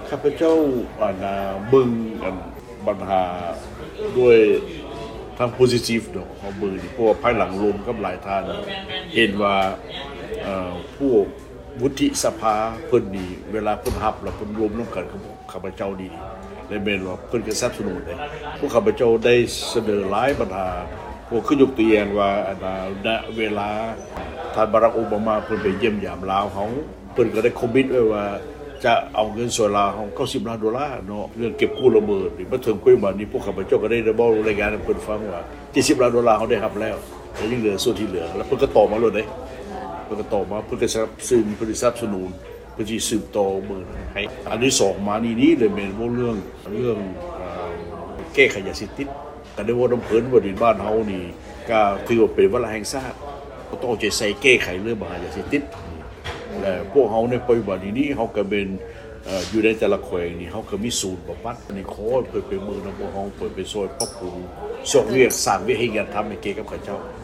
ຂ້າພະເຈົ້າອັນນາເບິ່ງອັນບັນຫາດ້ວຍທາງ positive ເນາະ ເຮົາເບິ່ງນີ້ ເພາະວ່າພາຍຫຼັງລົມກັບຫຼາຍທ່ານເຫັນວ່າ ເອີ ພວກວຸດທິສະພາເພິ່ນນີ້ ເວລາເພິ່ນຮັບແລ້ວເພິ່ນລົມນຳກັນກັບຂ້າພະເຈົ້າດີ ແລະແມ່ນວ່າເພິ່ນກໍສະໜັບສະໜູນເດ້. ພວກຂ້າພະເຈົ້າໄດ້ສະເໜີຫຼາຍບັນຫາ ພວກຄືຍົກຕົວຢ່າງວ່າອັນນາ ນະເວລາທ່ານບາຣັກ ໂອບາມາ ເພິ່ນໄປຢ້ຽມຢາມລາວເຮົາ ເພິ່ນກໍໄດ້ຄອມມິດໄວ້ວ່າຈະເອົາເງິນຊ່ວຍລາວເຮົາເກົ້າສິບລ້ານໂດລາເນາະ ເລື່ອງເກັບກູ້ລະເບີດນີ້. ມາເຖິງປັດຈຸບັນນີ້ ພວກຂ້າພະເຈົ້າກໍໄດ້ເວົ້າລາຍງານໃຫ້ເພິ່ນຟັງວ່າເຈັດສິບລ້ານໂດລາເຮົາໄດ້ຮັບແລ້ວ ແລະຍັງເຫຼືອສ່ວນທີ່ເຫຼືອ ແລ້ວເພິ່ນກໍຕອບມາໂລດເດ້ ເພິ່ນກໍຕອບມາ ເພິ່ນກໍສະໜັບສະໜູນ ເພິ່ນສະໜັບສະໜູນ ເພິ່ນຊິສືບຕໍ່ເບິ່ງໃຫ້. ອັນທີສອງມານີ້ນີ້ເລີຍແມ່ນເວົ້າເລື່ອງ ເລື່ອງ ເອີ ແກ້ໄຂຢາເສບຕິດ ກໍໄດ້ເວົ້ານຳເພິ່ນວ່າ ນີ້ບ້ານເຮົານີ້ກໍຖືວ່າເປັນວາລະແຫ່ງຊາດ ຕ້ອງເອົາໃຈໃສ່ແກ້ໄຂເລື່ອງບັນຫາຢາເສບຕິດ ແລະພວກເຮົາໃນປັດຈຸບັນນີ້ນີ້ ເຮົາກໍແມ່ນ ເອີ ຢູ່ໃນແຕ່ລະແຂວງນີ້ ເຮົາກໍມີສູນບຳບັດ ນີ້ຂໍໃຫ້ເພິ່ນໄປເບິ່ງນຳພວກເຮົາ ເພິ່ນໄປຊ່ວຍປັບປຸງ ຊອກວຽກ ສ້າງວຽກເຮັດງານທຳໃຫ້ແກ່ກັບເຂົາເຈົ້າ.